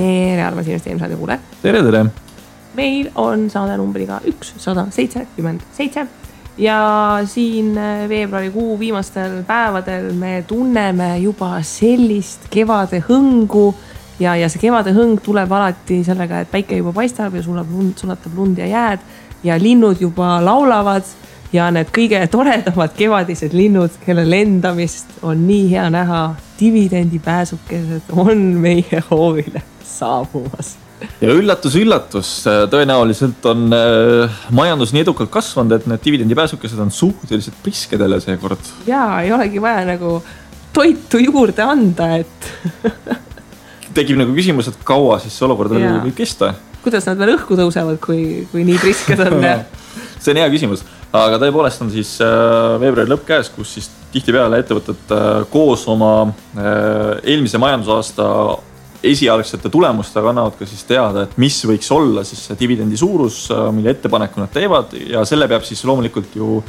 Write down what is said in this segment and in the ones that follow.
Tere, armas investeerimisradio kuule. Tere. Meil on saade numbriga 177 ja siin veebruarikuu viimastel päevadel me tunneme juba sellist kevade hõngu ja see kevade hõng tuleb alati sellega, et päike juba paistab ja sulatab lund ja jääd ja linnud juba laulavad ja need kõige toredamad kevadised linnud, kelle lendamist on nii hea näha, dividendipääsukesed on meie hoovile saabumas. Ja üllatus, tõenäoliselt on majandus nii edukalt kasvanud, et need dividendipääsukesed on suhteliselt priskedele seekord. Jaa, ei olegi vaja nagu toitu juurde anda, et tekib nagu küsimus, et kaua siis see olukord võib kesta? Kuidas nad veel õhku tõusevad, kui nii prisked on? See on hea küsimus, aga tõepoolest on siis veebruari lõpp käes, kus siis tihtipeale ettevõtted koos oma eelmise majandusaasta esialgsete tulemustega annavad ka siis teada, et mis võiks olla siis see dividendi suurus, mille ettepaneku nad teevad ja selle peab siis loomulikult ju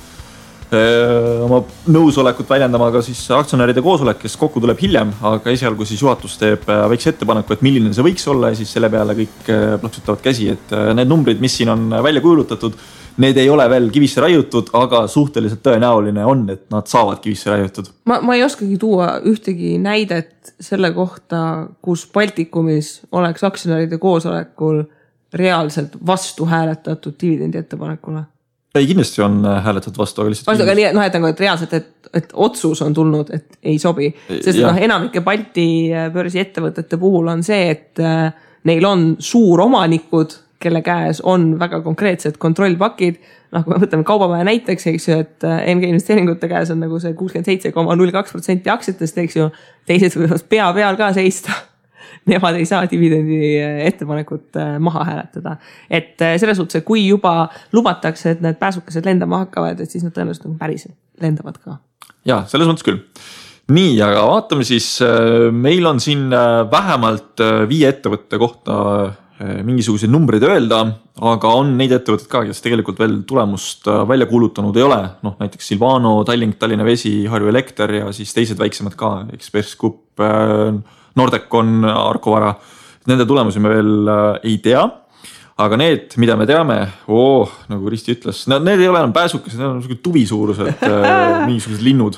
oma nõusolekut väljendama ka siis aktsionäride koosolek, kes kokku tuleb hiljem, aga esialgu siis juhatus teeb väikse ettepaneku, et milline see võiks olla ja siis selle peale kõik plaksutavad käsi, et need numbrid, mis siin on välja kuulutatud, need ei ole veel kivisse raiutud, aga suhteliselt tõenäoline on, et nad saavad kivisse raiutud. Ma ei oskagi tuua ühtegi näidet selle kohta, kus Baltikumis oleks aktsionäride koosolekul reaalselt vastu hääletatud dividendi ettepanekule. Ei, kindlasti on hääletatud vastu, aga lihtsalt... Aga nii, et reaalselt, et otsus on tulnud, et ei sobi. Sest enamike Balti börsi ettevõtete puhul on see, et neil on suuromanikud, kelle käes on väga konkreetsed kontrollpakid. Kui me võtame kaubamaja näiteks, eks ju, et MG investeeringute käes on nagu see 67,02% aktsiatest, eks ju, teised võivad pea peal ka seista. Nemad ei saa dividendi ettepanekut maha hääletada. Et selles suhtes, et kui juba lubatakse, et need pääsukesed lendama hakkavad, et siis nad tõenäoliselt nagu päriselt lendavad ka. Jaa, selles mõttes küll. Nii, aga vaatame siis, meil on siin vähemalt 5 ettevõtte kohta mingisuguseid numbreid öelda, aga on neid ettevõtted ka, kes tegelikult veel tulemust välja kuulutanud ei ole. Näiteks Silvano, Tallinna Vesi, Harju Elekter ja siis teised väiksemad ka, Express Group, Nordecon, Arkovara. Nende tulemusi me veel ei tea, aga need, mida me teame, nagu Risti ütles, need ei ole enam pääsukesed, need on tuvisuurused mingisugused linnud.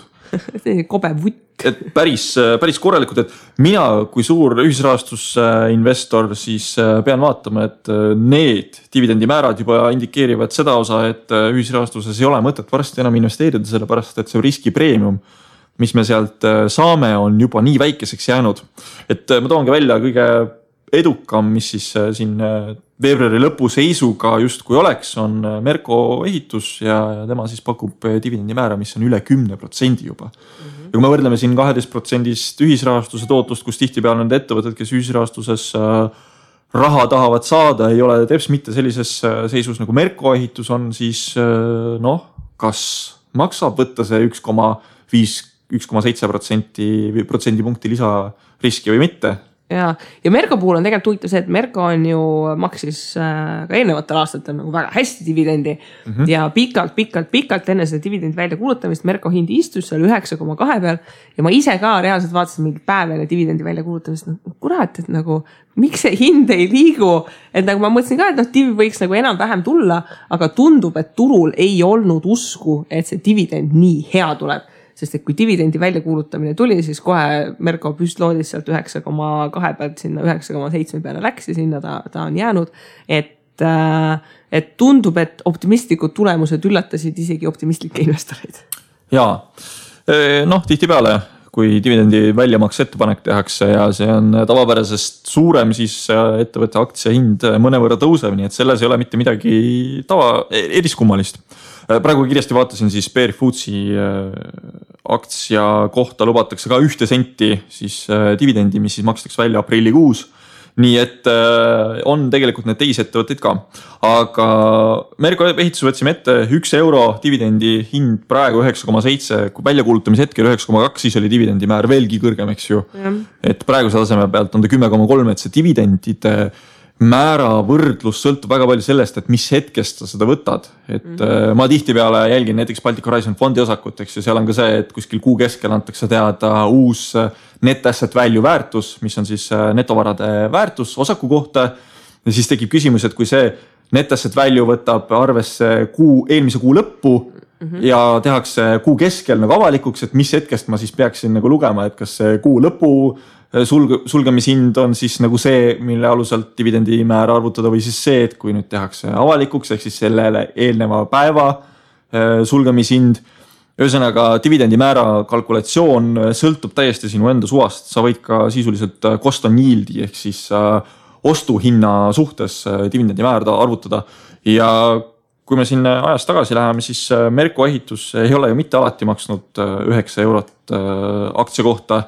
Kobe vutt. Et päris korralikud, et mina kui suur ühisrahastusinvestor siis pean vaatama, et need dividendimäärad juba indikeerivad seda osa, et ühisrahastuses ei ole mõtet varsti enam investeerida, sellepärast et see riskipreemium, mis me sealt saame, on juba nii väikeseks jäänud. Et ma toongi välja kõige edukam, mis siis siin veebruari lõpu seisuga justkui oleks, on Merko ehitus ja tema siis pakub dividendimäära, mis on üle 10% juba. Ja kui me võrdleme siin 12% ühisrahastuse tootlust, kus tihtipeale on need ettevõtted, kes ühisrahastuses raha tahavad saada, ei ole teps mitte sellises seisus nagu Merko ehitus on, siis kas maksab võtta see 1,7% punkti lisariski või mitte? Ja Merko puhul on tegelikult huvitav see, et Merko on ju maksis ka eelnevatel aastatel nagu väga hästi dividendi ja pikalt enne seda dividendi välja kuulutamist Merko hind istus seal 9,2 peal ja ma ise ka reaalselt vaatasin mingi päev enne dividendi välja kuulutamist, kurat, et nagu miks see hind ei liigu, et nagu ma mõtlesin ka, et divi võiks nagu enam-vähem tulla, aga tundub, et turul ei olnud usku, et see dividend nii hea tuleb. Sest et kui dividendi väljakuulutamine tuli, siis kohe Merko püstloodis sealt 9,2 pealt sinna 9,7 peale läks ja sinna ta on jäänud. Et tundub, et optimistlikud tulemused üllatasid isegi optimistlikke investoreid. Jaa, tihtipeale, kui dividendi väljamaks ettepanek tehakse ja see on tavapärasest suurem, siis ettevõtte aktsia hind mõnevõrra tõuseb, nii et selles ei ole mitte midagi eriskummalist. Praegu kiiresti vaatasin siis Bear Foodsi aktsia kohta lubatakse ka 1 senti siis dividendi, mis siis makstakse välja aprillikuus. Nii et on tegelikult need teisi ettevõtteid ka. Aga Merko ehitus võtsime ette 1 euro dividendi hind praegu 9,7, kui väljakuulutamise hetkel 9,2, siis oli dividendi määr veelgi kõrgem, eks ju. Et praeguse taseme pealt on ta 10,3, et see dividendide määra võrdlus sõltub väga palju sellest, et mis hetkest sa seda võtad. Et ma tihtipeale jälgin näiteks Baltic Horizon fondi osakut, eks, ja seal on ka see, et kuskil kuu keskel antakse teada uus net asset value väärtus, mis on siis netovarade väärtus osaku kohta. Ja siis tekib küsimus, et kui see net asset value võtab arvesse eelmise kuu lõppu ja tehakse kuu keskel nagu avalikuks, et mis hetkest ma siis peaksin nagu lugema, et kas see kuu lõpu sulgemishind on siis nagu see, mille aluselt dividendi määra arvutada või siis see, et kui nüüd tehakse avalikuks, ehk siis sellele eelneva päeva sulgemishind. Ühesõnaga dividendi määra kalkulatsioon sõltub täiesti sinu enda suvast. Sa võid ka sisuliselt cost on yield'i ehk siis ostuhinna suhtes dividendi määrda arvutada. Ja kui me siin ajas tagasi läheme, siis Merko ehitus ei ole ju mitte alati maksnud 9 eurot aktsia kohta.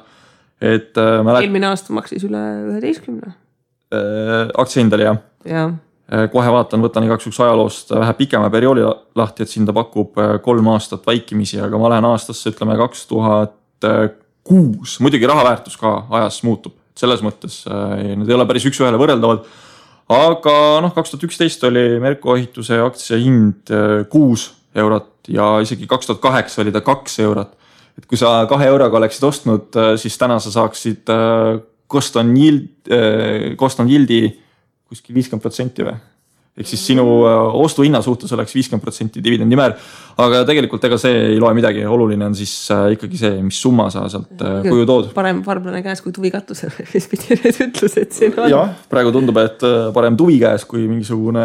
Et eelmine aasta maksis üle 11. Aktsiahindal, jah. Ja. Kohe võtan igaks üks ajaloost vähe pikema perioodi lahti, et siin ta pakub 3 aastat vaikimisi, aga ma lähen aastasse, ütleme 2006. Muidugi rahaväärtus ka ajas muutub. Selles mõttes need ei ole päris üks ühele võrreldavad. Aga 2011 oli Merko ehituse aktsiahind 6 eurot ja isegi 2008 oli ta 2 eurot. Et kui sa 2 euroga oleksid ostnud, siis täna sa saaksid cost on yield'i kuskil 50% või? Ehk siis sinu ostuhinna suhtes oleks 50% dividendi määr. Aga tegelikult ega see ei loe midagi. Oluline on siis ikkagi see, mis summa sa sealt kuju tood. Parem varblane käes kui tuvi katusel, mis pidi need ütlused siin on. Jah, praegu tundub, et parem tuvi käes kui mingisugune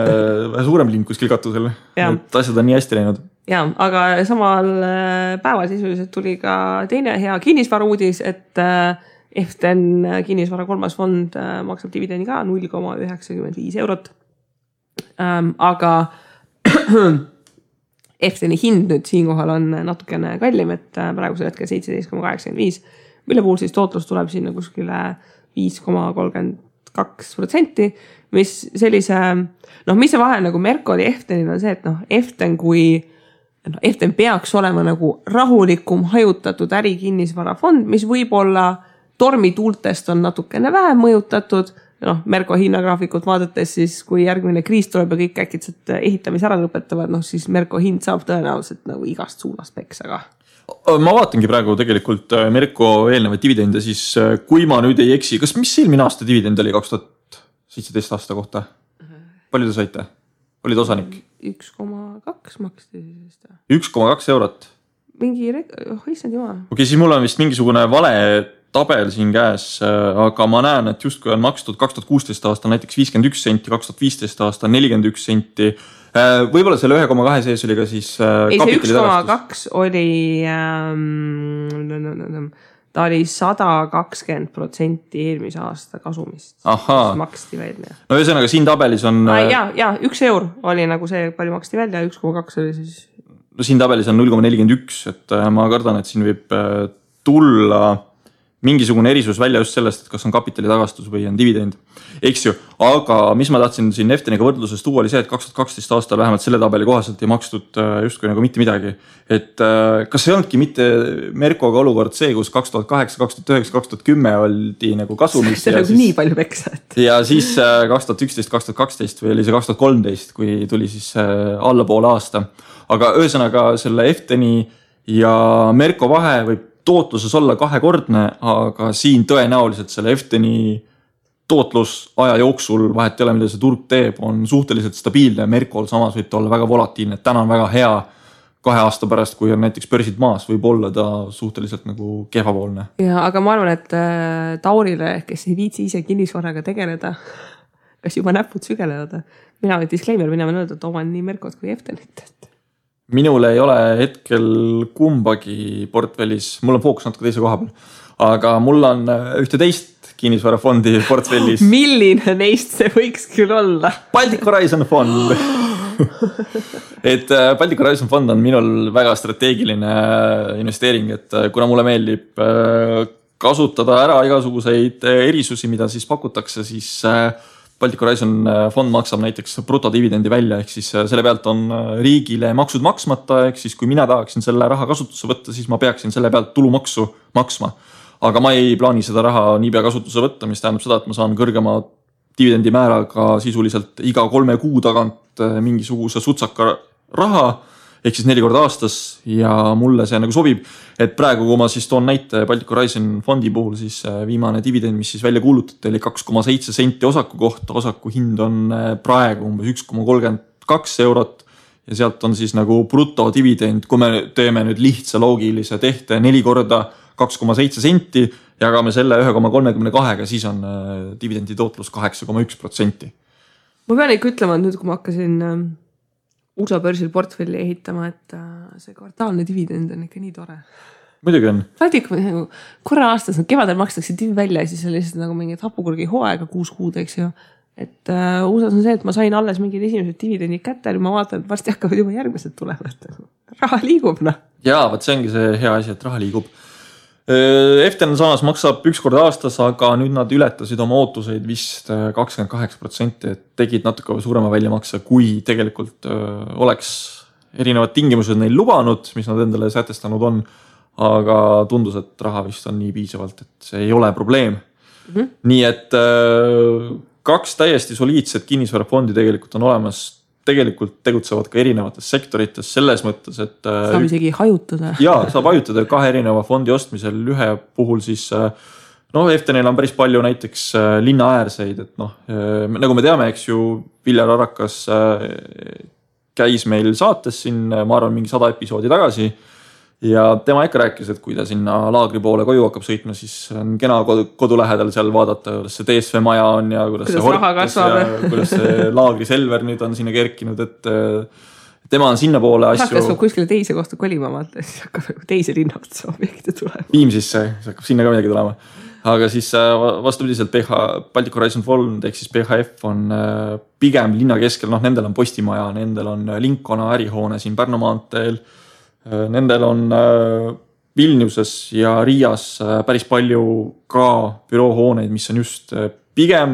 suurem lind kuskil katusel. Et asjad on nii hästi läinud. Ja, aga samal päeval sisuliselt tuli ka teine hea kinnisvara uudis, et Eften kinnisvara 3. fond maksab dividendi ka 0,95 eurot. Aga Efteni hind nüüd siinkohal on natukene kallim, et praegusel hetkel 17,85, mille puhul siis tootlus tuleb sinna kuskile 5,32%, mis sellise, mis see vahe nagu Merko oli Eftenil on see, et Eften kui Eften peaks olema nagu rahulikum hajutatud ärikinnisvarafond, mis võib-olla tormituultest on natukene vähem mõjutatud. Merko hinnagraafikut vaadates siis, kui järgmine kriis tuleb ja kõik äkitselt ehitamise ära lõpetavad, siis Merko hind saab tõenäoliselt nagu igast suunast peksa ka. Ma vaatangi praegu tegelikult Merko eelnevaid dividende, siis kui ma nüüd ei eksi, mis eelmine aasta dividend oli 2017 aasta kohta? Palju te saite? Olid osanik? 1,2 maksti. 1,2 eurot? Issand jumal. Okei, siis mul on vist mingisugune vale tabel siin käes, aga ma näen, et justkui on makstud 2016 aasta näiteks 51 senti, 2015 aasta 41 senti. Võib-olla selle 1,2 sees oli ka siis kapitali tagastus. 1,2 oli ta oli 120% eelmise aasta kasumist. Maksti välja. No ühesõnaga siin tabelis on... Ja 1 eur oli nagu see, palju maksti välja, 1,2 oli siis... No siin tabelis on 0,41, et ma kardan, et siin võib tulla mingisugune erisus välja just sellest, et kas on kapitali tagastus või on dividend. Eks ju, aga mis ma tahtsin siin Efteniga võrdluses tuua oli see, et 2012 aastal vähemalt selle tabeli kohaselt ei makstud justkui nagu mitte midagi. Et kas ei olnudki mitte Merkoga olukord see, kus 2008, 2009, 2010 oldi nagu kasumis? See on nagu nii palju peksa. Ja siis 2011, 2012 või oli see 2013, kui tuli siis alla poole aasta. Aga ühesõnaga selle Efteni ja Merko vahe võib tootluses olla kahekordne, aga siin tõenäoliselt selle Efteni tootlus aja jooksul vahet ei ole, mida see turg teeb, on suhteliselt stabiilne. Merkol samas võib ta olla väga volatiilne, et täna on väga hea 2 aasta pärast, kui on näiteks börsid maas, võib olla ta suhteliselt nagu kehvapoolne. Ja, aga ma arvan, et Taurile, kes ei viitsi ise kinnisvaraga tegeleda, kas juba näpud sügelevad. Mina olen disclaimer, mina võin öelda, et oman nii Merkot kui Eftenit. Minul ei ole hetkel kumbagi portfellis, mul on fookus natuke teise koha peal, aga mul on ühte teist kinnisvarafondi portfellis. Milline neist see võiks küll olla? Baltic Horizon fond. Et Baltic Horizon fond on minul väga strateegiline investeering, et kuna mulle meeldib kasutada ära igasuguseid erisusi, mida siis pakutakse, siis Baltic Horizon fond maksab näiteks brutodividendi välja, ehk siis selle pealt on riigile maksud maksmata, ehk siis kui mina tahaksin selle raha kasutusse võtta, siis ma peaksin selle pealt tulumaksu maksma. Aga ma ei plaani seda raha niipea kasutusse võtta, mis tähendab seda, et ma saan kõrgema dividendimääraga sisuliselt iga 3 kuu tagant mingisuguse sutsaka raha, ehk siis 4 korda aastas ja mulle see nagu sobib, et praegu, kui ma siis toon näite Baltic Horizon fondi puhul, siis viimane dividend, mis siis välja kuulutati, oli 2,7 senti osaku kohta, osaku hind on praegu umbes 1,32 eurot ja sealt on siis nagu brutodividend, kui me teeme nüüd lihtsa loogilise tehte 4 korda 2,7 senti, jagame selle 1,32, siis on dividendi tootlus 8,1%. Ma pean ikka ütlema, et nüüd, kui ma hakkasin USA börsil portfelli ehitama, et see kvartaalne dividend on ikka nii tore. Muidugi on. Korra aastas, kevadel makstakse divi välja ja siis on lihtsalt nagu mingid hapukurgi hooaega 6 kuud, eks ju. Et USAs on see, et ma sain alles mingid esimesed dividendid kätte ja ma vaatan, et varsti hakkavad juba järgmised tulema. Raha liigub, noh. Jaa, võt see ongi see hea asi, et raha liigub. FTN samas maksab 1 kord aastas, aga nüüd nad ületasid oma ootuseid vist 28%, et tegid natuke suurema väljamakse, kui tegelikult oleks erinevad tingimused neil lubanud, mis nad endale sätestanud on, aga tundus, et raha vist on nii piisavalt, et see ei ole probleem. Nii et 2 täiesti soliidset kinnisvarafondi tegelikult on olemas, tegelikult tegutsevad ka erinevates sektorites selles mõttes, et saab isegi hajutada. Jaa, saab hajutada 2 erineva fondi ostmisel. Ühe puhul siis, FTNil on päris palju näiteks linnaäärseid, et nagu me teame, eks ju, Viljar Arakas käis meil saates siin, ma arvan, mingi 100 episoodi tagasi ja tema ikka rääkis, et kui ta sinna laagri poole koju hakkab sõitma, siis on kena kodu lähedal seal vaadata, kuidas see DSV maja on ja kuidas see hortes ja kuidas see laagri Selver nüüd on sinna kerkinud, et tema on sinna poole asju. Hakkab kuskile teise kohta kolima, siis hakkab teise linnaotsa objekte tulema. Viimsisse, hakkab sinna ka midagi tulema. Aga siis vastupidiselt Baltic Horizon Fond ehk siis PHF on pigem linna keskel, nendel on postimaja, nendel on Linkona ärihoone siin Pärnu maanteel, nendel on Vilniuses ja Riias päris palju ka büroohooneid, mis on just pigem,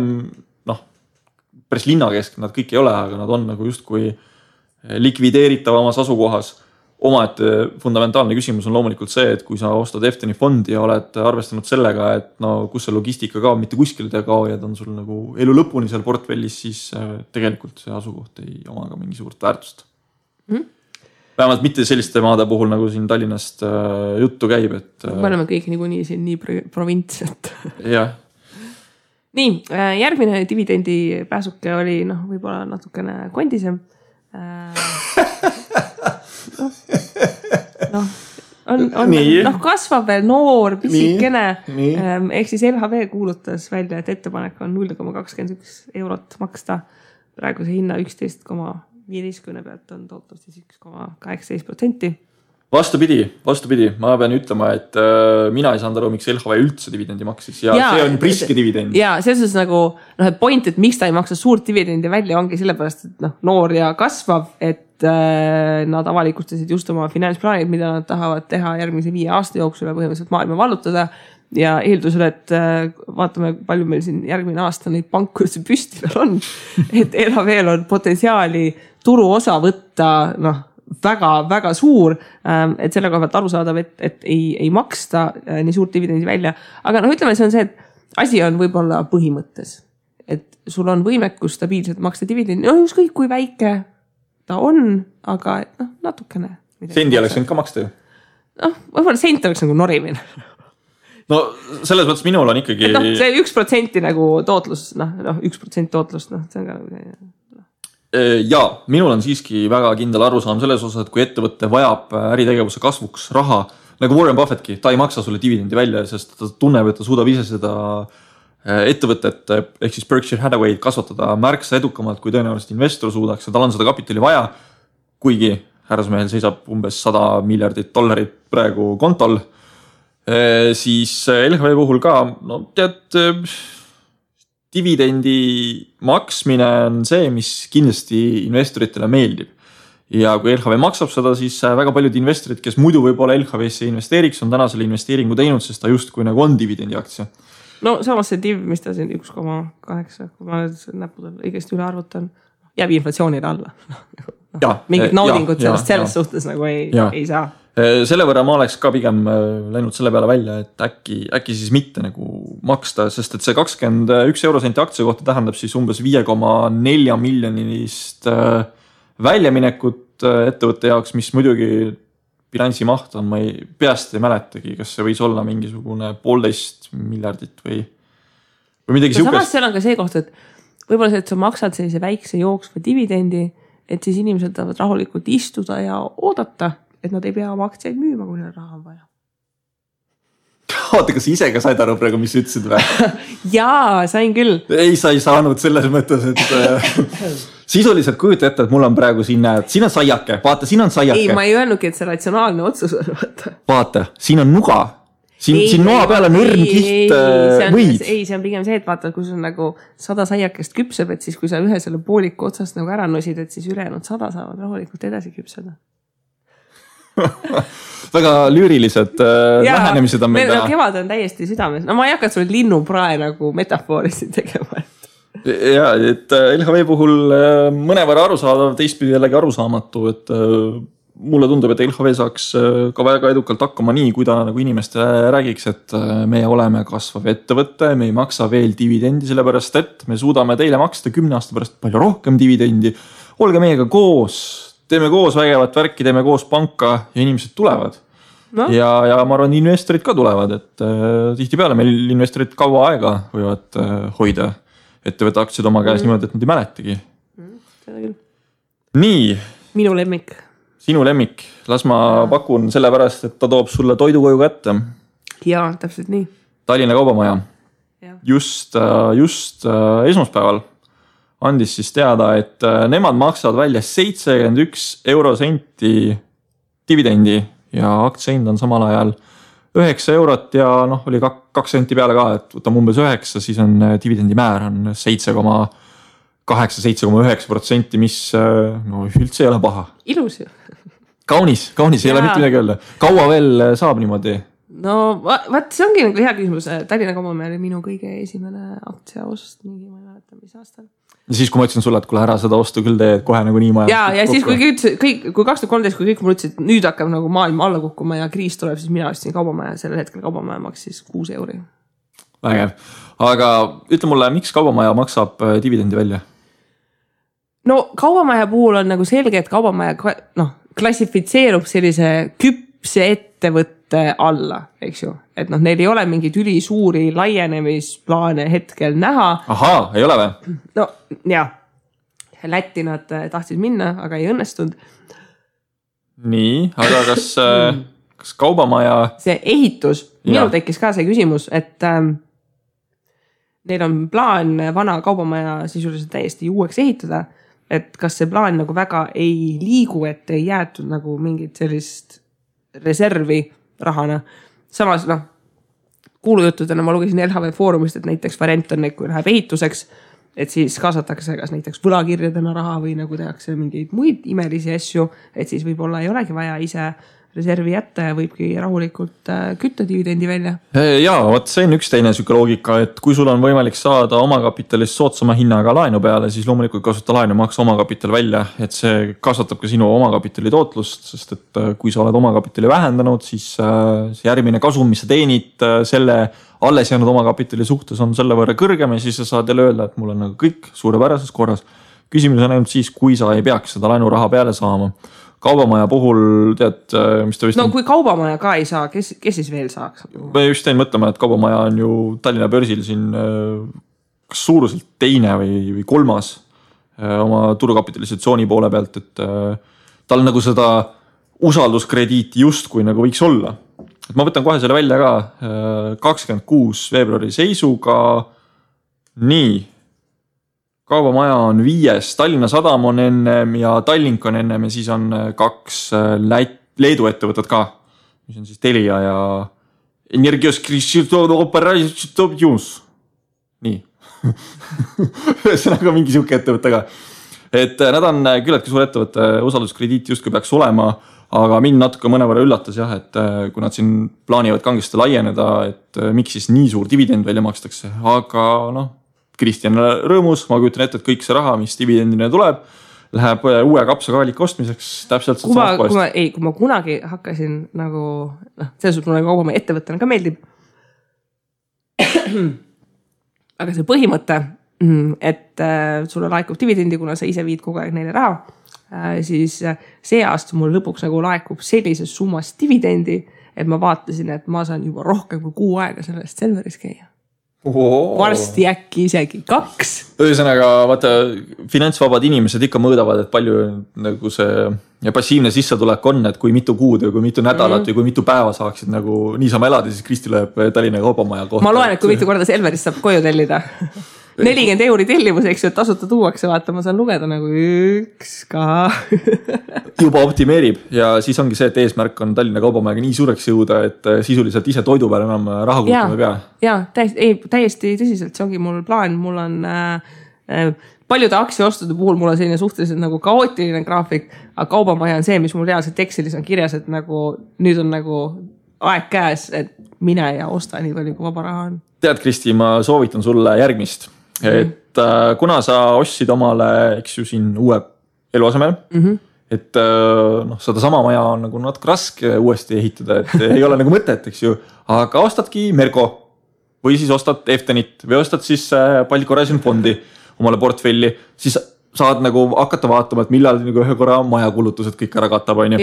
päris linna keskel, nad kõik ei ole, aga nad on nagu just kui likvideeritavamas asukohas. Omaette fundamentaalne küsimus on loomulikult see, et kui sa ostad FTN fondi ja oled arvestanud sellega, et kus see logistika kaob, mitte kuskil te kao ja ta on sul nagu elu lõpuni seal portfellis, siis tegelikult see asukoht ei oma ka mingi suurt väärtust. Vähemalt mitte selliste maade puhul, nagu siin Tallinnast juttu käib. Me oleme kõik niikuinii siin nii provints, et... Jah. Nii, järgmine dividendi pääsuke oli võib-olla natukene kondisem. Kasvab veel noor, pisikene. Ehk siis LHV kuulutas välja, et ettepanek on 0,21 eurot maksta. Praeguse hinna 11,15 pealt on tootlus 1,18%. Vastupidi, ma pean ütlema, et mina ei saanud aru, miks LHV üldse dividendi maksis ja see on priske dividend. Ja selles nagu, point, et miks ta ei maksa suurt dividendi välja, ongi sellepärast, et noor ja kasvav, et nad avalikustasid just oma finantsplaanid, mida nad tahavad teha järgmise 5 aasta jooksul ja põhimõtteliselt maailma vallutada ja eeldusel, et vaatame, palju meil siin järgmine aasta neid pankursi püsti veel on, et LHV-l on potentsiaali turu osa võtta, väga suur, et selle koha pealt aru saadav, et ei maksta nii suurt dividendi välja. Aga ütleme, see on see, et asi on võib-olla põhimõttes, et sul on võimekus stabiilselt maksta dividendi, ükskõik kui väike ta on, aga natukene. Sendi oleks võinud ka maksta ju? Võib-olla sent oleks nagu norimine. No selles mõttes minul on ikkagi... see 1% nagu tootlus, 1% tootlust, see on ka... Jaa, minul on siiski väga kindel arusaam selles osas, et kui ettevõtte vajab äritegevuse kasvuks raha, nagu Warren Buffettki, ta ei maksa sulle dividendi välja, sest ta tunneb, et ta suudab ise seda ettevõtet, ehk siis Berkshire Hathaway kasvatada märksa edukamalt, kui tõenäoliselt investor suudaks ja tal on seda kapitali vaja, kuigi härrasmehel seisab umbes $100 miljardit praegu kontol, siis LHV puhul ka, dividendi maksmine on see, mis kindlasti investoritele meeldib. Ja kui LHV maksab seda, siis väga paljud investorid, kes muidu võib-olla LHV-sse investeeriks, on täna selle investeeringu teinud, sest ta just kui nagu on dividendi aktsia. Samas see div, mis ta siin 1,8, kui ma näpudel õigesti üle arvutan, jääb inflatsioonile alla. Mingid naudingud sellest suhtes nagu ei saa. Selle võrra ma oleks ka pigem läinud selle peale välja, et äkki siis mitte nagu maksta, sest et see 21 eurosenti aktsia kohta tähendab siis umbes 5,4 miljonilist väljaminekut ettevõtte jaoks, mis muidugi bilansi maht on, ma peast ei mäletagi, kas see võis olla mingisugune 1,5 miljardit või midagi siukest. Samas seal on ka see koht, et võib-olla see, et sa maksad sellise väikse jooksva dividendi, et siis inimesed tahavad rahulikult istuda ja oodata, et nad ei pea oma aktsiaid müüma, kui neil raha on vaja. Oota, kas ise ka said aru praegu, mis ütlesid või? Jaa, sain küll. Ei, sa ei saanud selles mõttes, et sisuliselt kujuta ette, et mul on praegu siin on saiake, vaata, siin on saiake. Ei, ma ei öelnudki, et see ratsionaalne otsus on, vaata. Vaata, siin on nuga. Siin noa peal on õrn kiht võid. Ei, see on pigem see, et vaata, kui sul nagu 100 saiakest küpseb, et siis kui sa ühe selle pooliku otsast nagu ära nosid, et siis ülejäänud 100 saavad rahulikult edasi küpseda. Väga lüürilised lähenemised on meil täna. Kevad on täiesti südames. No ma ei hakka sulle linnuprae nagu metafoorisi tegema. Ja, et LHV puhul mõnevõrra arusaadav, teistpidi jällegi arusaamatu, et mulle tundub, et LHV saaks ka väga edukalt hakkama nii, kui ta nagu inimestele räägiks, et me oleme kasvav ettevõte, me ei maksa veel dividendi, sellepärast et me suudame teile maksta 10 aasta pärast palju rohkem dividendi. Olge meiega koos, teeme koos vägevat värki, teeme koos panka ja inimesed tulevad. No. Ja ma arvan, investorid ka tulevad, et tihtipeale meil investorid kaua aega võivad hoida ettevõtte aktsiad oma käes niimoodi, et nad ei mäletagi. Nii. Minu lemmik. Sinu lemmik. Las ma pakun sellepärast, et ta toob sulle toidu koju kätte. Jaa, täpselt nii. Tallinna Kaubamaja. Just esmaspäeval andis siis teada, et nemad maksavad välja 71 eurosenti dividendi ja aktsiahind on samal ajal 9 eurot ja oli 2 senti peale ka, et võtame umbes 9, siis on dividendi määr on 7,8-7,9%, mis üldse ei ole paha. Ilus ju. Kaunis ei ole mitte midagi öelda. Kaua veel saab niimoodi? No vaat see ongi nagu hea küsimus. Tallinna Kaubamaja oli minu kõige esimene aktsiaost, mingi ma ei mäleta, mis aastal. Ja siis, kui ma ütlesin sulle, et kuule ära seda ostu küll teed kohe nagu nii maja. Ja siis, kui 2013, kui kõik mul ütlesid, et nüüd hakkab nagu maailm alla kukkuma ja kriis tuleb, siis mina ostsin Kaubamaja. Sellel hetkel Kaubamaja maksis 6 euri. Vägev. Aga ütle mulle, miks Kaubamaja maksab dividendi välja? No Kaubamaja puhul on nagu selge, et Kaubamaja klassifitseerub sellise küpse ettevõtte alla, eks ju. Et neil ei ole mingid ülisuuri laienemisplaane hetkel näha. Ahaa, ei ole või? No jah, Lätti nad tahtsid minna, aga ei õnnestunud. Nii, aga kas Kaubamaja... See ehitus, minul tekkis ka see küsimus, et neil on plaan vana Kaubamaja sisuliselt täiesti uueks ehitada, et kas see plaan nagu väga ei liigu, et ei jäetud nagu mingit sellist reservi rahana. Samas, kuulujuttudena ma lugesin LHV foorumist, et näiteks variant on, kui läheb ehituseks, et siis kaasatakse kas näiteks võlakirjadena raha või nagu tehakse mingeid muid imelisi asju, et siis võib-olla ei olegi vaja ise reservi jätta ja võibki rahulikult kütta dividendi välja. Jaa, see on üks teine süke loogika, et kui sul on võimalik saada omakapitalist soodsama hinnaga laenu peale, siis loomulikult kasuta laenu maksa omakapital välja, et see kasvatab ka sinu omakapitali tootlust, sest et kui sa oled omakapitali vähendanud, siis see järgmine kasum, mis sa teenid selle alles jäänud omakapitali suhtes on selle võrra kõrgem ja siis sa saad jälle öelda, et mul on nagu kõik suurepärases korras. Küsimus on ainult siis, kui sa ei peaks seda laenuraha peale saama. Kaubamaja puhul tead, mis ta vist... No kui Kaubamaja ka ei saa, kes siis veel saaks? Ma just tein mõtlema, et Kaubamaja on ju Tallinna börsil siin kas suuruselt teine või kolmas oma turukapitalisatsiooni poole pealt, et tal nagu seda usalduskrediiti justkui nagu võiks olla. Et ma võtan kohe selle välja ka 26 veebruari seisuga. Nii. Kaubamaja on 5, Tallinna Sadam on ennem ja Tallink on ennem ja siis on 2 Leedu ettevõtted ka, mis on siis Telia ja Energios Operations. Nii. Ühesõnaga mingi siuke ettevõte ka. Et nad on küllaltki suur ettevõtte, usalduskrediit justkui peaks olema, aga mind natuke mõnevõrra üllatas jah, et kui nad siin plaanivad kangesti laieneda, et miks siis nii suur dividend välja makstakse, aga Kristjan rõõmus, ma kujutan ette, et kõik see raha, mis dividendina tuleb, läheb uue kapsakaaliku ostmiseks täpselt kui ma kunagi hakkasin nagu, selles suhtes mulle kaubamaja ettevõttena ka meeldib. Aga see põhimõte, et sulle laekub dividendi, kuna sa ise viid kogu aeg neile raha, siis see aasta mul lõpuks nagu laekub sellises summas dividendi, et ma vaatasin, et ma saan juba rohkem kui 6 aega sellest Selveris käia. Varsti äkki isegi 2. Ühesõnaga, vaata, finantsvabad inimesed ikka mõõdavad, et palju nagu see passiivne sissetulek on, et kui mitu kuud või kui mitu nädalat või kui mitu päeva saaksid nagu niisama elada, siis Kristi lööb Tallinna kaubamaja kohta. Ma loen, et kui mitu korda Selverist saab koju tellida. 40 € tellimus, eks ju, et tasuta tuuakse, vaata, ma saan lugeda nagu 1 ka. Juba optimeerib ja siis ongi see, et eesmärk on Tallinna kaubamajaga nii suureks jõuda, et sisuliselt ise toidu peale enam raha kulutama ei pea. Jaa, täiesti tõsiselt, see ongi mul plaan, mul on paljude aktsiaostude puhul mul on selline suhteliselt nagu kaootiline graafik, aga kaubamaja on see, mis mul reaalselt Excelis on kirjas, et nagu nüüd on nagu aeg käes, et mine ja osta nii palju, kui vaba raha on. Tead, Kristi, ma soovitan sulle järgmist. Et kuna sa ostsid omale, eks ju, siin uue eluasemel, et seda sama maja on nagu natuke raske uuesti ehitada, et ei ole nagu mõtet, eks ju, aga ostadki Merko või siis ostad Eftenit või ostad siis Baltic Horizon fondi omale portfelli, siis saad nagu hakata vaatama, et millal nagu ühe korra majakulutused kõik ära katab, on ju.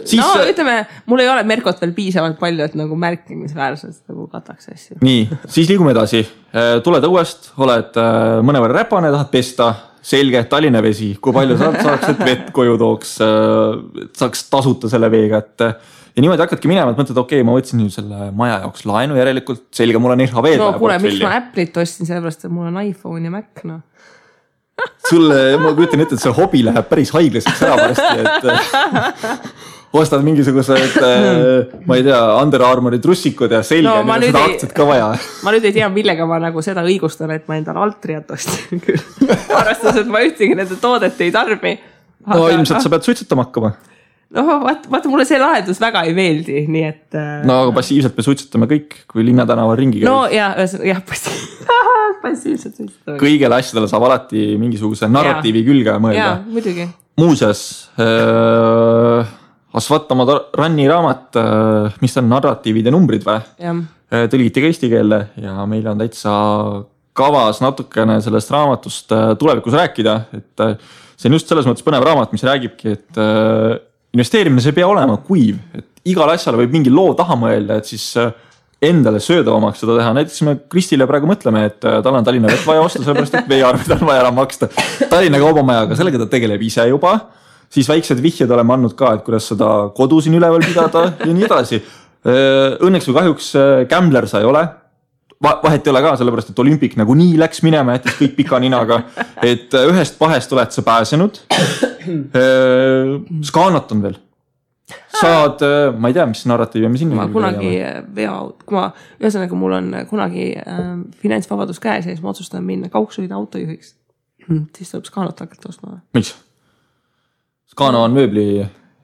Siis, ütleme, mul ei ole Merkot veel piisavalt palju, et nagu märkimisväärselt nagu kataks asju. Nii, siis liigume edasi. Tuled õuest, oled mõnevõrra räpane, tahad pesta, selge, Tallinna vesi, kui palju saaks, et vett koju tooks, saaks tasuta selle veega, et ja niimoodi hakkadki minema, et mõtled, okei, ma võtsin nüüd selle maja jaoks laenu järelikult, selge, mul on IRHV. No kuule, miks ma Apple'it ostsin, sellepärast, et mul on iPhone ja Mac, Sulle, ma kujutan ette, et see hobi läheb päris haiglaseks ära varsti, et ostad mingisugused, ma ei tea, Under Armouri trussikud ja selge, seda aktsiat ka vaja. Ma nüüd ei tea, millega ma nagu seda õigustan, et ma endal Altriat ostin küll. Arvestas, et ma ühtegi nende toodet ei tarbi. No ilmselt sa pead suitsetama hakkama. No vaata, mulle see lahendus väga ei meeldi, nii et... No aga passiivselt me suitsetame kõik, kui Linnatänava ringi käib. No jah, passiivselt suitsetame. Kõigele asjadele saab alati mingisuguse narratiivi külge mõelda. Jaa, muidugi. Muuseas, Asvatama Ranni raamat, mis on narratiivid ja numbrid või? Tõlgiti ka eesti keelde ja meil on täitsa kavas natukene sellest raamatust tulevikus rääkida, et see on just selles mõttes põnev raamat, mis räägibki, et investeerimine see ei pea olema kuiv, et igal asjale võib mingi loo taha mõelda, et siis endale söödavamaks seda teha. Näiteks me Kristile praegu mõtleme, et tal on Tallinna vett vaja osta, sellepärast, et veearved on vaja ära maksta. Tallinna kaubamajaga, sellega ta tegeleb ise juba, siis väiksed vihjed oleme andnud ka, et kuidas seda kodu siin üleval pidada ja nii edasi. Õnneks või kahjuks Gambler sa ei ole. Vahet ei ole ka, sellepärast, et Olümpik nagu nii läks minema, jättis kõik pika ninaga, et ühest pahest oled sa pääsenud. Skaanat on veel. Saad, ma ei tea, mis narratiiv ja mis ma kunagi veoaut, kui ma ühesõnaga mul on kunagi finantsvabadus käes ja siis ma otsustan minna kaugsõida autojuhiks, siis tuleb Skaanat hakata ostma. Miks? Skaana on mööbli...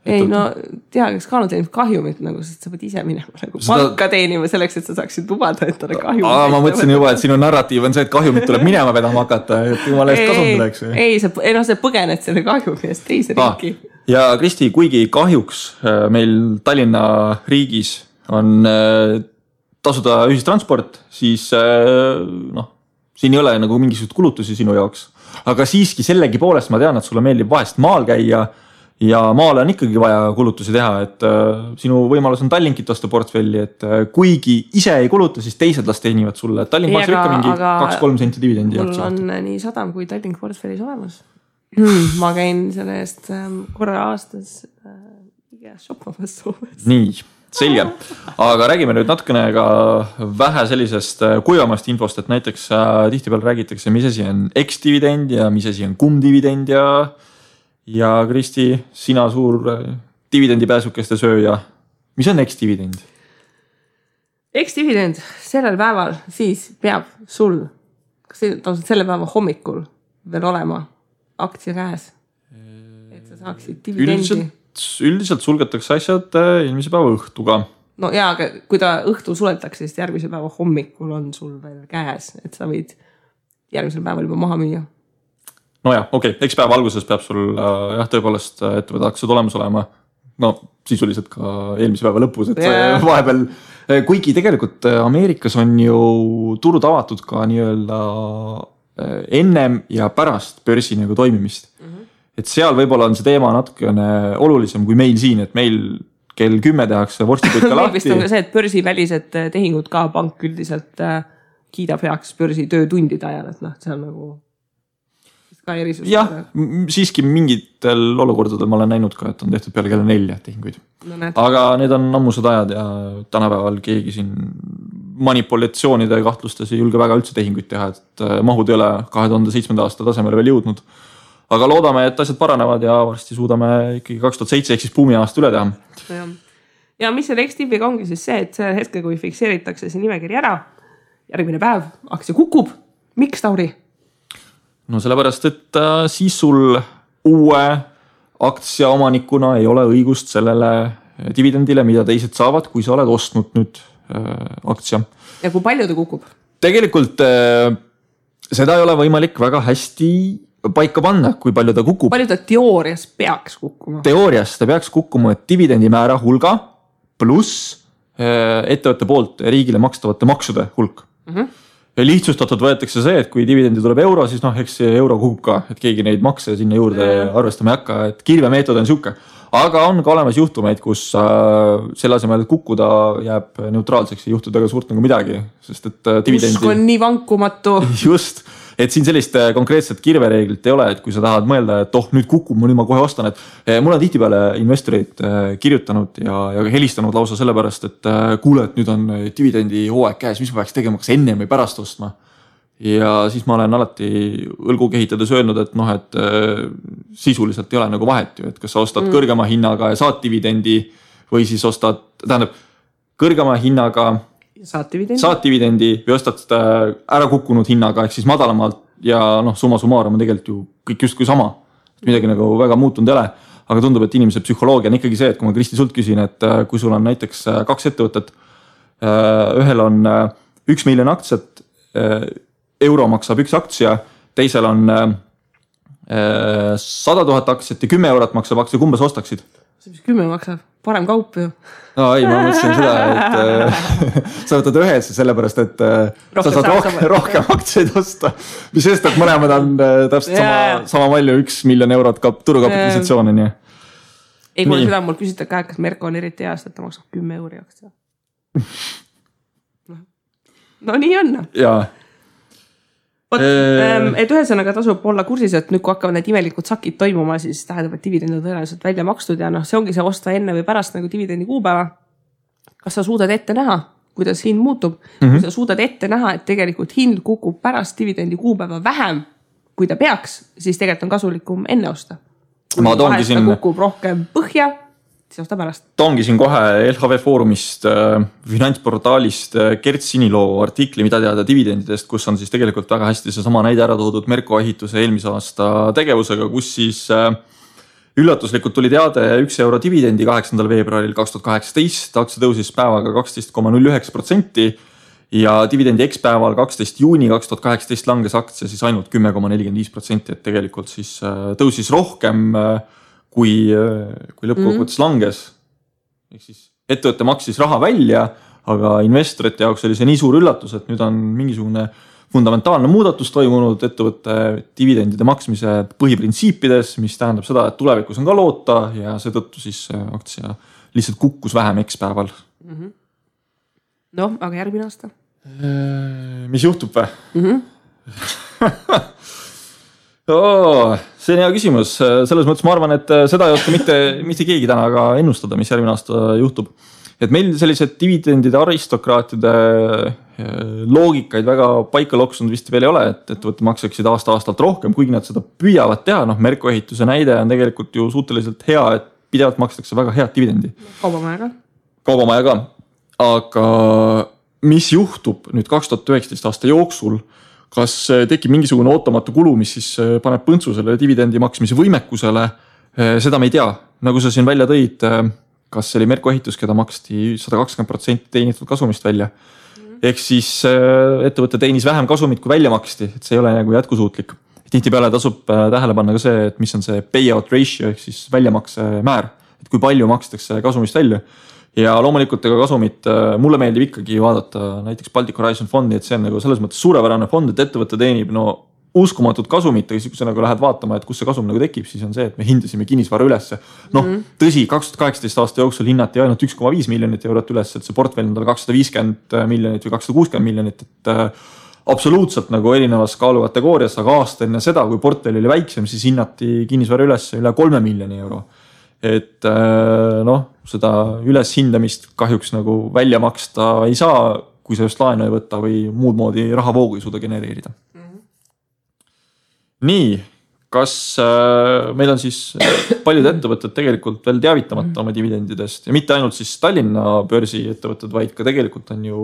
Ei, no tea, Skaana teenib kahjumit, nagu, sest sa pead ise minema nagu palka teenima selleks, et sa saaksid lubada, et talle kahjumit. Ma mõtlesin juba, et sinu narratiiv on see, et kahjumit tuleb minema vedama hakata, et jumala eest kasum tuleks. Ei, sa põgened selle kahjumi eest teise riiki. Ja Kristi, kuigi kahjuks meil Tallinna riigis on tasuda ühistransport, siis siin ei ole nagu mingisugust kulutusi sinu jaoks. Aga siiski sellegi poolest ma tean, et sulle meeldib vahest maal käia ja maale on ikkagi vaja kulutusi teha, et sinu võimalus on Tallinkit osta portfelli, et kuigi ise ei kuluta, siis teised las teenivad sulle. Tallink maksab ikka mingi 2-3 senti dividendi. Mul on nii Sadam kui Tallink portfellis olemas. Ma käin selle eest korra aastas shoppamas Soomes. Nii, selge. Aga räägime nüüd natukene ka vähe sellisest kuivamast infost, et näiteks tihtipeal räägitakse, mis asi on X-dividend ja mis asi on cum-dividend ja Kristi, sina suur dividendipääsukeste sööja. Mis on X-dividend? X-dividend sellel päeval siis peab sul, kas selle päeva hommikul veel olema aktsia käes, et sa saaksid dividendi? Üldiselt sulgetakse asjad eelmise päeva õhtuga. No jaa, aga kui ta õhtu suletakse, siis järgmise päeva hommikul on sul veel käes, et sa võid järgmisel päeval juba maha müüa. nojah, okei, eks päeva alguses peab sul jah, tõepoolest ettevõtte aktsiad olemas olema. No sisuliselt ka eelmise päeva lõpus, et vahepeal, kuigi tegelikult Ameerikas on ju turud avatud ka nii-öelda ennem ja pärast börsi nagu toimimist. Et seal võib-olla on see teema natukene olulisem kui meil siin, et meil kell 10 tehakse vorstipütka lahti. Vist on ka see, et börsivälised tehingud ka pank üldiselt kiidab heaks börsi töötundide ajal, et see on nagu ka erisus. Jah, siiski mingitel olukordadel ma olen näinud ka, et on tehtud peale kella 4 tehinguid. No, aga need on ammused ajad ja tänapäeval keegi siin manipulatsioonide kahtlustes ei julge väga üldse tehinguid teha, et mahud ei ole 2007. aasta tasemele veel jõudnud. Aga loodame, et asjad paranevad ja varsti suudame ikkagi 2007 ehk siis buumi aasta üle teha. Ja mis selle X-tipiga ongi siis see, et see hetke, kui fikseeritakse see nimekiri ära, järgmine päev aktsia kukub. Miks, Tauri? No sellepärast, et siis sul uue aktsia omanikuna ei ole õigust sellele dividendile, mida teised saavad, kui sa oled ostnud nüüd aktsia. Ja kui palju ta kukub? Tegelikult seda ei ole võimalik väga hästi paika panna, kui palju ta kukub. Palju ta teoorias peaks kukkuma? Teoorias ta peaks kukkuma dividendimäära hulga pluss ettevõtte poolt riigile makstavate maksude hulk. Ja lihtsustatud võetakse see, et kui dividendi tuleb euro, siis eks see euro kukub ka, et keegi neid makse sinna juurde arvestama ei hakka, et kirvemeetod on siuke. Aga on ka olemas juhtumeid, kus selle asemel kukkuda jääb neutraalseks ja juhtuda ka suurt nagu midagi, sest et dividendi... Usk on nii vankumatu. Just. Et siin sellist konkreetset kirvereeglit ei ole, et kui sa tahad mõelda, et nüüd kukub, nüüd ma kohe ostan, et mul on tihtipeale investorid kirjutanud ja helistanud lausa sellepärast, et kuule, et nüüd on dividendi hooaeg käes, mis ma peaks tegema, kas enne või pärast ostma. Ja siis ma olen alati õlgu kehitades öelnud, et sisuliselt ei ole nagu vahet ju, et kas sa ostad kõrgema hinnaga ja saad dividendi või siis ostad, tähendab, kõrgema hinnaga saad dividendi või ostad ära kukkunud hinnaga ehk siis madalamalt ja summa summarum on tegelikult ju kõik just kui sama. Midagi nagu väga muutunud ei ole, aga tundub, et inimese psühholoogia on ikkagi see, et kui ma Kristi sult küsin, et kui sul on näiteks 2 ettevõtet, ühel on 1 miljon aktsiat, euro maksab 1 aktsia, teisel on 100 000 aktsiat ja 10 eurot maksab aktsia, kumba sa ostaksid? See mis 10 maksab? Parem kaup ju. No ei, ma mõtlesin seda, et sa võtad ühes sellepärast, et sa saad rohkem aktsiaid osta. Mis sest, et mõlemad on täpselt sama palju 1 miljon eurot turukapitalisatsioon. Ei, kui seda mul küsita ka, kas Merko on eriti heast, et ta maksab 10 euri aktsia. No nii on. Jaa. Et ühesõnaga tasub olla kursis, et nüüd kui hakkavad need imelikud sakid toimuma, siis tähendab, et dividend on tõenäoliselt välja makstud ja see ongi see osta enne või pärast nagu dividendi kuupäeva. Kas sa suudad ette näha, kuidas hind muutub? Kui sa suudad ette näha, et tegelikult hind kukub pärast dividendi kuupäeva vähem, kui ta peaks, siis tegelikult on kasulikum enne osta. Kui vahest ta kukub rohkem põhja, siis osta pärast. Toongi siin kohe LHV Foorumist, finantsportaalist Gert Siniloo artikli, mida teada dividendidest, kus on siis tegelikult väga hästi see sama näide ära toodud Merko ehituse eelmise aasta tegevusega, kus siis üllatuslikult tuli teade 1 euro dividendi 8. veebruaril 2018, aktsia tõusis päevaga 12,09% ja dividendi X-päeval 12. juuni 2018 langes aktsia siis ainult 10,45%, et tegelikult siis tõusis rohkem kui lõppkokkuvõttes langes. Ehk siis ettevõtte maksis raha välja, aga investorite jaoks oli see nii suur üllatus, et nüüd on mingisugune fundamentaalne muudatus toimunud ettevõtte dividendide maksmise põhiprintsiipides, mis tähendab seda, et tulevikus on ka loota ja seetõttu siis aktsia lihtsalt kukkus vähem X-päeval. No, aga järgmine aasta? Mis juhtub või? See on hea küsimus. Selles mõttes ma arvan, et seda ei oska mitte keegi täna ka ennustada, mis järgmine aasta juhtub. Et meil sellised dividendide aristokraatide loogikaid väga paika loksunud vist veel ei ole, et ettevõtte maksaksid aasta-aastalt rohkem, kuigi nad seda püüavad teha. Merko ehituse näide on tegelikult ju suhteliselt hea, et pidevalt makstakse väga head dividendi. Kaubamaja ka. Aga mis juhtub nüüd 2019 aasta jooksul, kas tekib mingisugune ootamatu kulu, mis siis paneb põntsu selle dividendi maksmise võimekusele, seda me ei tea. Nagu sa siin välja tõid, kas see oli Merko ehitus, keda maksti 120% teenitud kasumist välja. Ehk siis ettevõtte teenis vähem kasumit, kui välja maksti, et see ei ole nagu jätkusuutlik. tihtipeale tasub tähele panna ka see, et mis on see payout ratio ehk siis väljamakse määr, et kui palju makstakse kasumist välja. Ja loomulikult ega kasumit mulle meeldib ikkagi vaadata näiteks Baltic Horizon fondi, et see on nagu selles mõttes suurepärane fond, et ettevõte teenib uskumatud kasumit, aga siis kui sa nagu lähed vaatama, et kus see kasum nagu tekib, siis on see, et me hindasime kinnisvara ülesse. Tõsi, 2018 aasta jooksul hinnati ainult 1,5 miljonit eurot üles, et see portfell on tal 250 miljonit või 260 miljonit, et absoluutselt nagu erinevas kaalukategoorias, aga aasta enne seda, kui portfell oli väiksem, siis hinnati kinnisvara ülesse üle 3 miljoni euro. Et seda üleshindamist kahjuks nagu välja maksta ei saa, kui sa just laenu ei võtta või muud moodi rahavoogu ei suuda genereerida. Nii, kas meil on siis paljud ettevõtted tegelikult veel teavitamata oma dividendidest ja mitte ainult siis Tallinna börsi ettevõtted, vaid ka tegelikult on ju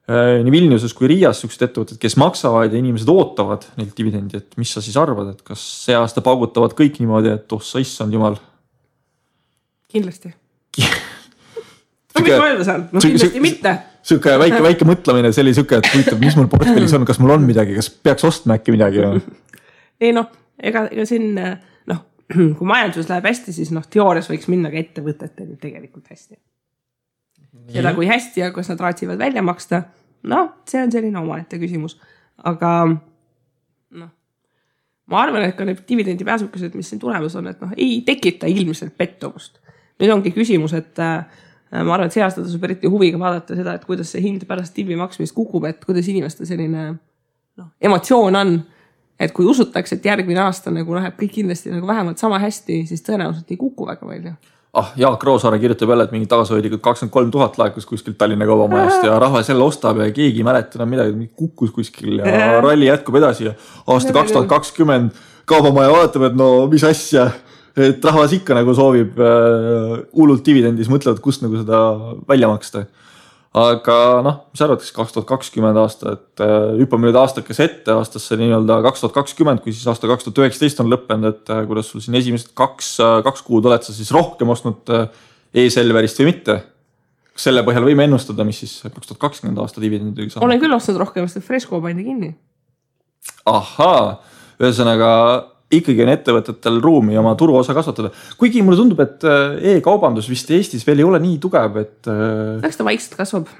nii Vilniuses kui Riias sellised ettevõtted, kes maksavad ja inimesed ootavad neilt dividendi, et mis sa siis arvad, et kas see aasta paugutavad kõik niimoodi, et sa issand jumal? Kindlasti. Mis ma öelda saan? Kindlasti mitte. Siuke väike mõtlemine, see oli siuke, et huvitav, mis mul portfellis on, kas mul on midagi, kas peaks ostma äkki midagi? Ei ega siin, kui majandus läheb hästi, siis teoorias võiks minna ka ettevõtetel tegelikult hästi. Seda kui hästi ja kas nad raatsivad välja maksta, see on selline omaette küsimus. Aga ma arvan, et ka need dividendi pääsukesed, mis siin tulemas on, et ei tekita ilmselt pettumust. Nüüd ongi küsimus, et ma arvan, et see aasta tasub eriti huviga vaadata seda, et kuidas see hind pärast divi maksmist kukub, et kuidas inimeste selline emotsioon on, et kui usutakse, et järgmine aasta nagu läheb kõik kindlasti nagu vähemalt sama hästi, siis tõenäoliselt ei kuku väga palju. Jaak Roosaare kirjutab jälle, et mingi tagasihoidlikult 23 000 laekus kuskilt Tallinna kaubamajast ja rahva selle ostab ja keegi mäleta midagi kukkus kuskil ja ralli jätkub edasi ja aasta 2020 kaubamaja vaatab, et mis asja, et rahvas ikka nagu soovib hullult dividendis, mõtlevad, kust nagu seda välja maksta. Aga mis arvatakse 2020 aasta, et hüppame nüüd aastakese ette aastasse nii-öelda 2020, kui siis aasta 2019 on lõppenud, et kuidas sul siin esimesed kaks kuud oled sa siis rohkem ostnud e-Selverist või mitte? Kas selle põhjal võime ennustada, mis siis 2020 aasta dividendidega saab? Olen küll ostnud rohkem, sest Fresco pandi kinni. Ahaa, ühesõnaga ikkagi on ettevõtetel ruumi oma turuosa kasvatada. Kuigi mulle tundub, et e-kaubandus vist Eestis veel ei ole nii tugev, et eks ta vaikselt kasvab.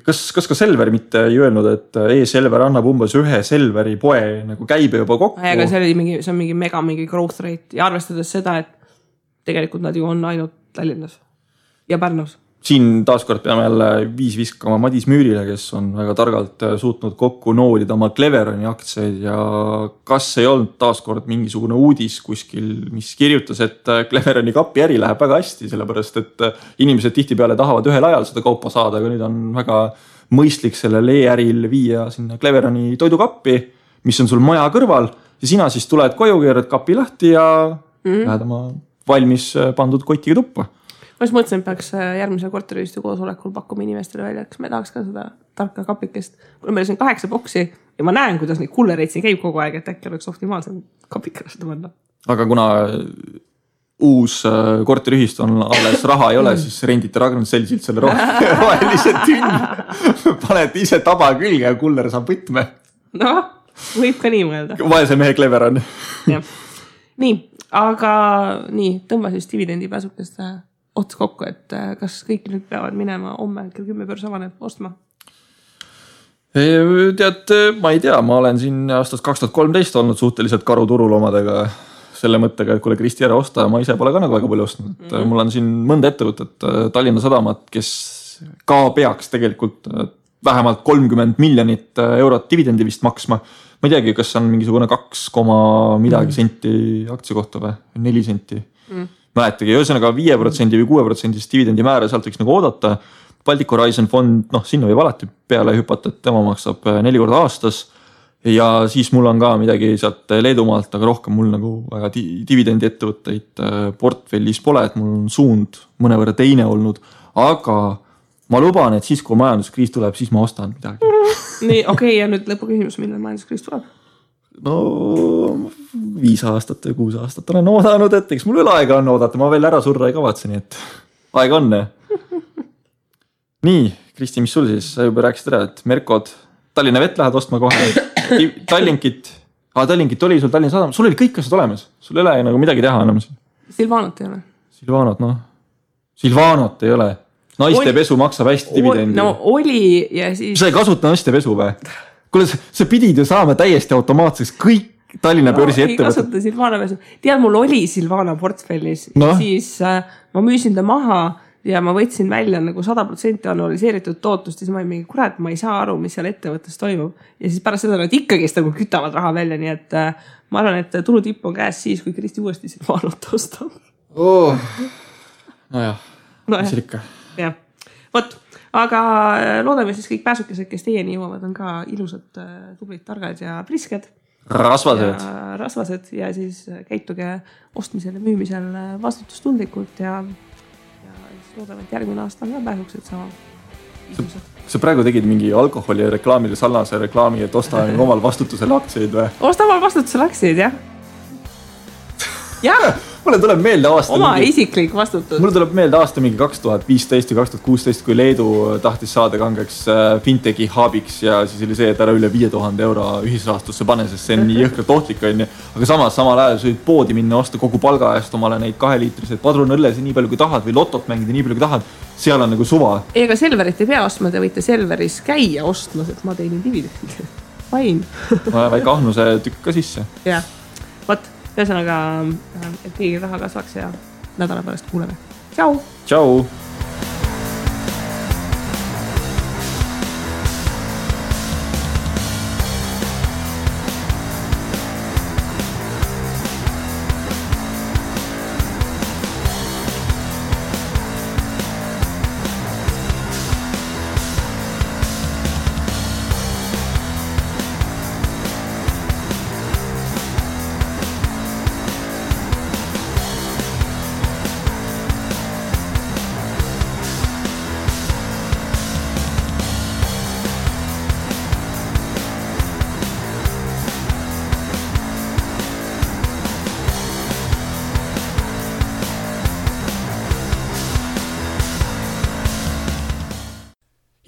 Kas ka Selver mitte ei öelnud, et e-Selver annab umbes ühe Selveri poe nagu käibe juba kokku? Aga see on mingi growth rate ja arvestades seda, et tegelikult nad ju on ainult Tallinnas ja Pärnus. Siin taaskord peame jälle viskama Madis Müürile, kes on väga targalt suutnud kokku noolida oma Cleveroni aktsiaid ja kas ei olnud taaskord mingisugune uudis kuskil, mis kirjutas, et Cleveroni kapi äri läheb väga hästi, sellepärast et inimesed tihtipeale tahavad ühel ajal seda kaupa saada, aga nüüd on väga mõistlik sellel e-äril viia sinna Cleveroni toidukappi, mis on sul maja kõrval ja sina siis tuled koju, keerad kapi lahti ja lähed oma valmis pandud kotiga tuppa. Ma just mõtlesin, et peaks järgmise korteriühistu koosolekul pakkuma inimestele välja, kas me tahaks ka seda tarka kapikest. Kui meil on 8 boksi ja ma näen, kuidas neid kullereid siin käib kogu aeg, et äkki oleks optimaalsem kapikele seda panna. Aga kuna uus korteriühistu on alles raha ei ole, siis rendite Ragnar Selsilt selle rohelise tünni. Paned ise taba külge ja kuller saab võtme. Võib ka nii mõelda. Vaese mehe Clever on. Nii, aga tõmba siis dividendi pääsukest ots kokku, et kas kõik nüüd peavad minema homme kell 10 börs avaneb ostma? Tead, ma ei tea, ma olen siin aastast 2013 olnud suhteliselt karuturul omadega selle mõttega, et kuule Kristi ära osta ja ma ise pole ka nagu väga palju ostnud. Mul on siin mõnda ettevõtet, Tallinna Sadamat, kes ka peaks tegelikult vähemalt 30 miljonit eurot dividendi vist maksma. Ma ei teagi, kas on mingisugune 2, midagi senti aktsia kohta või 4 senti. Mäletagi, ühesõnaga 5% või 6% dividendi määra sealt võiks nagu oodata. Baltic Horizon fond, sinna võib alati peale hüpata, et tema maksab 4 korda aastas ja siis mul on ka midagi sealt Leedumaalt, aga rohkem mul nagu väga dividendi ettevõtteid portfellis pole, et mul on suund mõnevõrra teine olnud, aga ma luban, et siis kui majanduskriis tuleb, siis ma ostan midagi. Nii, okei, ja nüüd lõpuküsimus, millal majanduskriis tuleb? 5 aastat või 6 aastat olen oodanud, et eks mul veel aega on oodata, ma veel ära surra ei kavatse, nii et aega on. Nii, Kristi, mis sul siis? Sa juba rääkisid ära, et Merkod, Tallinna Vett lähed ostma kohe, Tallinkit, Tallinkit oli sul Tallinna Sadam, sul oli kõik asjad olemas, sul ei ole nagu midagi teha enam. Silvanot ei ole. Silvanot ei ole. Naiste pesu maksab hästi dividendi. No oli ja siis... Sa ei kasuta naiste pesu või? Kuule, sa pidid ju saama täiesti automaatseks kõik Tallinna börsi ettevõtted. Ei kasuta Silvana pesu. Tead, mul oli Silvana portfellis ja siis ma müüsin ta maha ja ma võtsin välja nagu 100% annualiseeritud tootlust ja siis ma olin mingi, kurat, ma ei saa aru, mis seal ettevõttes toimub. Ja siis pärast seda nad ikkagist nagu kütavad raha välja, nii et ma arvan, et tulutipp on käes siis, kui Kristi uuesti Silvanot ostab. Nojah, mis ikka. Jah, võt, aga loodame siis kõik pääsukesed, kes teieni jõuavad, on ka ilusad, tublid, targad ja prisked. Rasvased ja siis käituge ostmisel ja müümisel vastutustundlikult ja loodame, et järgmine aasta on ka pääsukesed sama. Sa praegu tegid mingi alkoholi reklaamile sarnase reklaami, et osta omal vastutusel aktsiaid või? Osta omal vastutusel aktsiaid, jah. Jah. Mulle tuleb meelde aasta oma isiklik vastutus. Mulle tuleb meelde aasta mingi 2015 ja 2016, kui Leedu tahtis saada kangeks fintechi haabiks ja siis oli see, et ära üle 5000 euro ühisrahastusse pane, sest see on nii jõhkralt ohtlik on. Aga samal ajal sa võid poodi minna osta kogu palga eest omale neid 2-liitrised padrunõlles nii palju kui tahad või lotot mängida nii palju kui tahad. Seal on nagu suva. Ega Selverit ei pea ostma, te võite Selveris käia ostmas, et ma teinin dividendi. Vain. Väike ahnuse tükk ka sisse. Jah, võt. Ühesõnaga, et keegi raha kasvaks ja nädala pärast kuuleme. Tšau! Tšau!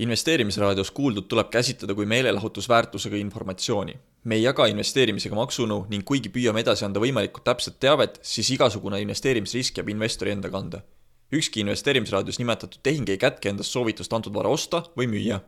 Investeerimisraadios kuuldud tuleb käsitleda kui meelelahutusväärtusega informatsiooni. Me ei jaga investeerimisega maksunõu ning kuigi püüame edasi anda võimalikult täpset teavet, siis igasugune investeerimisrisk jääb investori enda kanda. Ükski investeerimisraadios nimetatud tehing ei kätke endast soovitust antud vara osta või müüa.